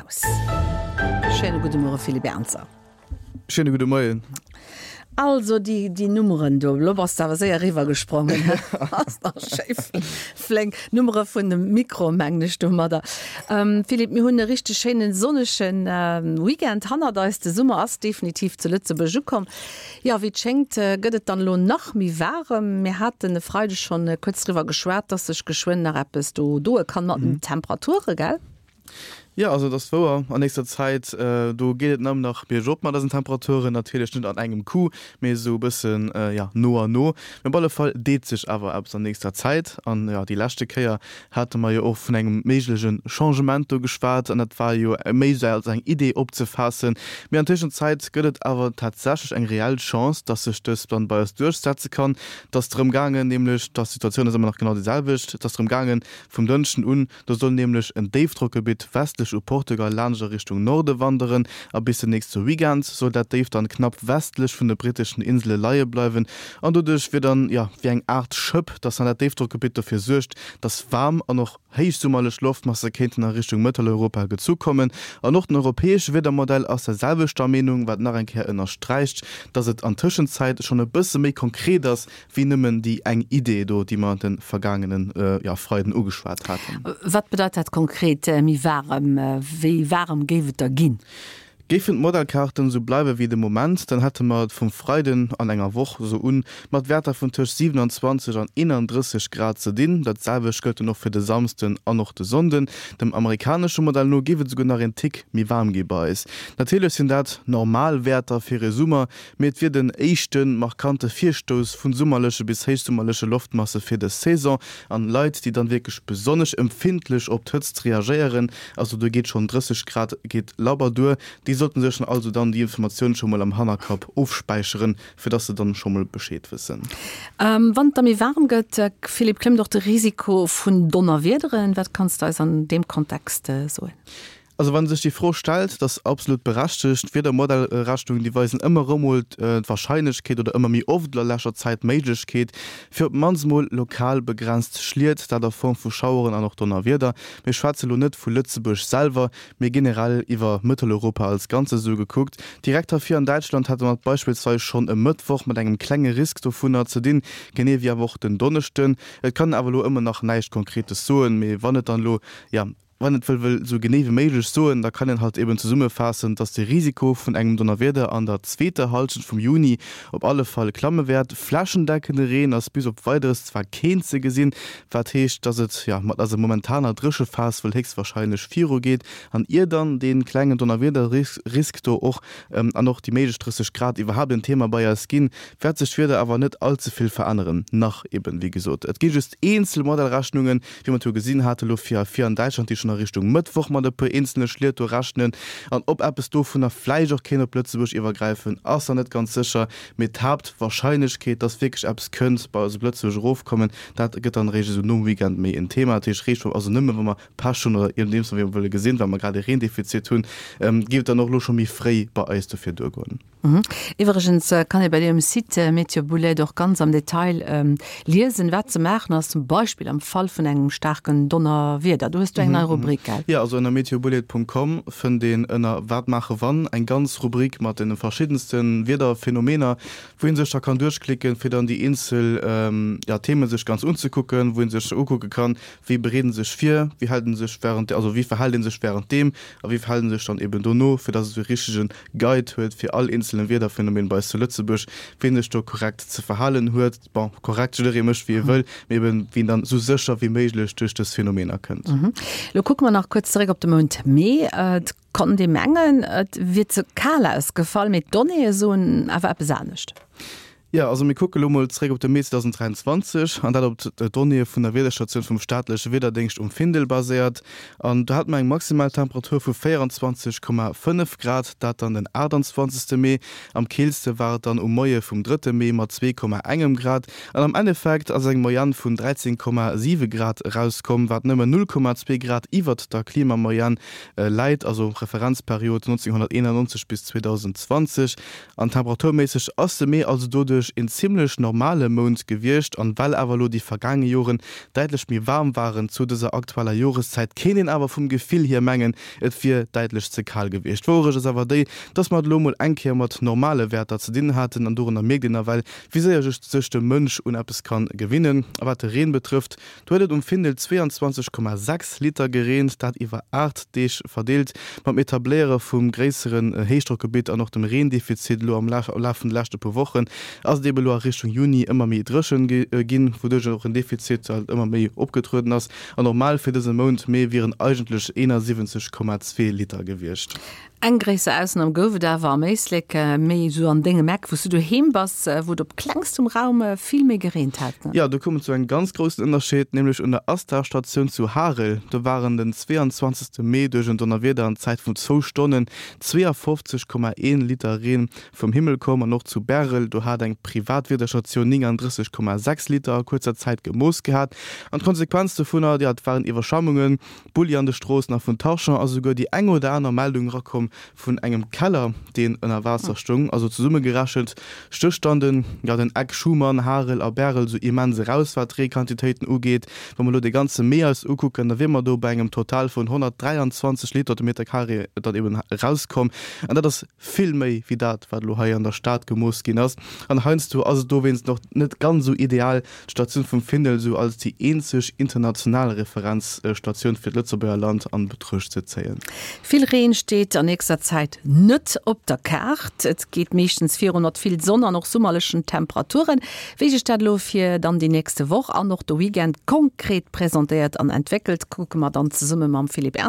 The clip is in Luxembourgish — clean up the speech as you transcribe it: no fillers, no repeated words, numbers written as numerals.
aus. Schéine gudde Muere Philippe Ernzer. Schéine gudde Moien. Also déi, déi Nummeren do, elo bass de awer séier eriwwer gesprongen, ass nach schéi flénk. Nummere vun dem Mikro mengen ech domadder. Philippe, mir hunn e richteg schéinen sonnege Weekend hannert eis. De Summer ass definitiv zu Lëtzebuerg ukomm. Jo, wéi et schéngt gëtt et dann elo nach méi waarem. Mir haten e Freideg schonn kuerz driwwer geschwat, dass sech geschwënn nach eppes do doe kann mat den Temperature, gell? Jo, also et ass wouer, an nächster Zäit, do geet et nëmmen nach biergop mat eisen Temperaturen. Natierlech net an engem Coup, mee esou e bëssen, jo, no an no. Mee op alle Fall deet sech awer eppes an nächster Zäit. An, jo, déi leschte Kéier hate mer jo och vun engem méigleche Changement do geschwat, an dat war jo méi esou als eng Idee opzefaassen. Mee an Tëschenzäit gëtt et awer tatsächlech eng reell Chance, dass sech dës dann bei eis duerchsetze kann. Et ass drëm gaangen, nämlech, dass d'Situatioun ass ëmmer nach genau déi selwecht, et ass drëm gaangen, vum Dënschden un, Do soll nämlech en Déifdrockgebitt westlech u Portugal laanscht a Richtung Norde wanderen a bis den nächste Weekend soll dat Déif dann knapp westlech vun de britteschen Insele leie bleiwen an doduerch wier dann, jo, wéi eng Aart Schëpp, dass dann dat Déifdrockgebitt dofir suergt, dass waarm an och héichsummerlech Loftmasse kéinten a Richtung Mëtteleuropa gezu kommen. An och den europäesche Wiedermodell ass der selwechter Meenung, wat nach eng Kéier ënnersträicht, dass et an Tëschenzäit schonn e bësse méi konkret ass, Wéi nëmmen déi eng Idee do, déi mer de vergaangene, jo, Freiden ugeschwat haten. Wat bedeit dat konkret, méi waarem? Wéi waarem géif et da ginn? Géifen d'Modellkaarten esou bleiwe wéi de Moment, dann hätte mer et vum Freiden an enger Woch esou un mat Wäerter vun tëscht 27 an 31 Grad ze dinn. Dat selwecht gëllt dann och fir de Samsden an och de Sonnden. Dem amerikanesche Modell no géif et esouguer nach een Tick méi waarm gi bei eis. Natierlech sinn dat normal Wäerter fir e Summer, Mee et wier den éischte markante Virstouss vu summerleche bis héichsummerleche Loftmasse fir dës Saison. An Leit, déi dann wierklech besonnesch empfindlech op d'Hëtzt reagéieren, also do geet schonn 30 Grad geet labber duer, déi sollten sech dann also dann déi Informatioun scho mol am Hannerkapp ofspäicheren, fir dass se dann scho mol Bescheed wëssen. Wann et da méi waarem gëtt, Philippe, klëmmt och de Risiko vun Donnerwiederen. Wat kanns de eis an deem Kontext soen? Also wann sech déi Fro stellt, dat ass absolut berechtegt. D'Wiedermodellrechnungen, déi weisen ëmmer erëm mol d'Warscheinlechkeet oder ëmmer méi oft a leschter Zäit d'Méiglechkeet fir op d'mannst mol lokal begrenzt Schliet, dat a Form vu Schaueren an och Donnerwieder. Mir schwätze lo net vu Lëtzebuerg selwer, mee generell iwwer Mëtteleuropa als Ganzes esou gekuckt. Direkt hei vir an Däitschland hate mer et beispillsweis schonn e Mëttwoch mat engem klenge Risk dovunner ze dinn, genee wéi awer och den Donneschden. Et kann een awer elo ëmmer nach näischt Konkretes soen, mee wann et dann elo, jo, Wann et wëll wëll esou genee wéi méiglech soen, da kann een halt eben zesummefaassen, dass de Risiko vun engem Donnerwieder an der zweeter Hallschent vum Juni op alle Fall klamme wäert. Flächendeckende Reen ass bis op Weideres zwar keen ze gesinn, wat heescht, dass et jo mat eiser momentaner Dréchephas wuel héchstwarscheinlech virugeet. An ier dann dee klengen Donnerwiederrisk do och an och déi méiglech 30 Grad iwwerhaapt en Thema bei eis ginn, wäert sech d'Wieder awer net all ze vill veränneren. Nach eben, wéi gesot, et gi just eenzel Modellrechnungen, Wéi mer et jo gesinn hate lo fir fir an Däitschland, déi schonn a Richtung Mëttwoch mat e puer eenzele Schliet do rechnen. An ob eppes dovunner vläicht och kéint op Lëtzebuerg iwwergräifen, ass nach net ganz sécher. Mee d'Haaptwarscheinlechkeet, dass wierklech eppes kënnt bei eis op Lëtzebuerg erofkommen, dat gëtt dann eréischt esou nom Weekend méi en Thema. Dat heescht, réischt also nëmme wa mer Pech hunn oder iergendeems wéi mer wëlle gesinn, well mer grad e Reendefizit hunn, géif et dann och elo scho méi fréi bei eis dofir duergoen. Iwwregens kann ee bei dir um Site Meteobullet och ganz am Detail liesen, wat ze maachen ass, zum Beispill am Fall vun engem staarken Donnerwieder. Do hues du eng nei Rubrik, gell? Jo, also ënner meteobullet.com fënnt een ënner Wat maache wann eng ganz Rubrik mat de verschiddenste Wiederphenomener, wou ee sech da kann duerchklicken, fir dann déi eenzel, ja, Themen sech ganz unzekucken, wou ee sech ukucke kann, wéi bereet en sech vir, wéi hält en sech während, also wéi verhält een sech während deem a wéi verhält en sech dann eben dono, fir dass e sou e richtegen Guide huet fir all eenzele Wiederphänomen bei eis zu Lëtzebuerg, wéi en sech do korrekt ze verhalen huet. Bon, korrekt, jidderee mécht wéi e wëll, mee eben wéi en dann sou sécher wéi méiglech duerch dës Phänomener kënnt. Lo kucke mer nach kuerz zeréck op de Mount Mee. Et konnt ee mengen, et wier ze kal ausgefall, mee d'Donnéeë soen awer eppes anescht. Jo, also mir kucke lo mol zréck op de Mee 2023, an dat op d'Donnéeë vun der Wiederstatioun vum staatleche Wiederdéngscht um Findel baséiert. An do hate mer eng maximal Temperatur vu 24,5 Grad, dat dann den 28. Mee. Am keelste war et dann um Moie vum drëtte Mee mat 2,engem Grad. An am Endeffekt ass eng Moyenne vun 13,7 Grad erauskomm, wat nëmmen 0,2 Grad iwwert der Klimamoyenne läit, also Referenzperiod 1991 bis 2020. An temperaturméisseg ass de Mee also doduerch. eigentlech een zimmlech normale Mount gewiescht an well awer elo déi vergaange Joren däitlech méi waarm waren zu dëser aktueller Joreszäit, kéint een awer vum Gefill hier mengen, et wier däitlech ze kal gewiescht. D'Wouerecht ass awer déi, dass mer et elo mol eng Kéier mat normale Wäerter ze dinn haten an dorunner mierkt een nawell, wéi séier sech de Mënsch un eppes kann gewinnen. A wat de Reen betrëfft, Do huet et um Findel 22,6 Liter gereent, dat iwwer 8 Deeg verdeelt. Mam Etabléiere vum gréisseren Héichdrockgebitt an och dem Reendefizit elo am Laf vun de leschte puer Wochen ass et ebe elo a Richtung Juni ëmmer méi dréchen ginn, wouduerch och en Defizit halt ëmmer méi opgetrueden ass. An normal fir dëse Mount Mee wieren eigentlech 71,2 Liter gewiescht. Eng gréisser Ausnam gouf et awer am Éislek, méi esou an dengem Eck, wou s du doheem bass, wou et op klengstem Raum vill méi gereent hat. Jo, do koum et zu engem ganz groussen Ënnerscheed, nämlech un der Astar-Statioun zu Harel. Do waren den 22. Mee duerch en Donnerwieder an Zäit vun zwou Stonnen 52,1 Liter Reen vum Himmel komm. An och zu Bärel, do hat eng privat Wiederstatioun 39,6 Liter a kuerzer Zäit gemooss gehat. An d'Konsequenz dovunner, jo, et waren Iwwerschwammungen. Bulli an de Stroossen a vun Tarchamps ass esouguer déi eng oder aner Meldung erakomm vun engem Keller, deen ënner Waasser stoung. Also zesummegerechent stécht dann den, jo, den Eck Schuman, Harel a Bärel esou immens eraus, wat d'Reequantitéiten ugeet. Wa mer elo de ganze Mee eis ukucken, da wier mer do bei engem Total vun 123 Liter de Meter carré dann eben erauskomm. An dat ass vill méi wéi dat, wat elo hei an der Stad gemooss ginn ass. An heiansdo ass et dowéinst och net ganz esou ideal, d'Statioun vum Findel esou als déi eenzeg international Referenzstatioun fir d'Lëtzebuerger Land an Betruecht ze zéien. Vill Reen steet an nächster Zäit net op der Kaart. Et geet meeschtens virun mat vill Sonn an och summerlechen Temperaturen. Wéi sech dat elo fir dann déi nächste Woch an och de Weekend konkret presentéiert an entwéckelt, kucke mer dann zesumme mam Philippe Ernzer.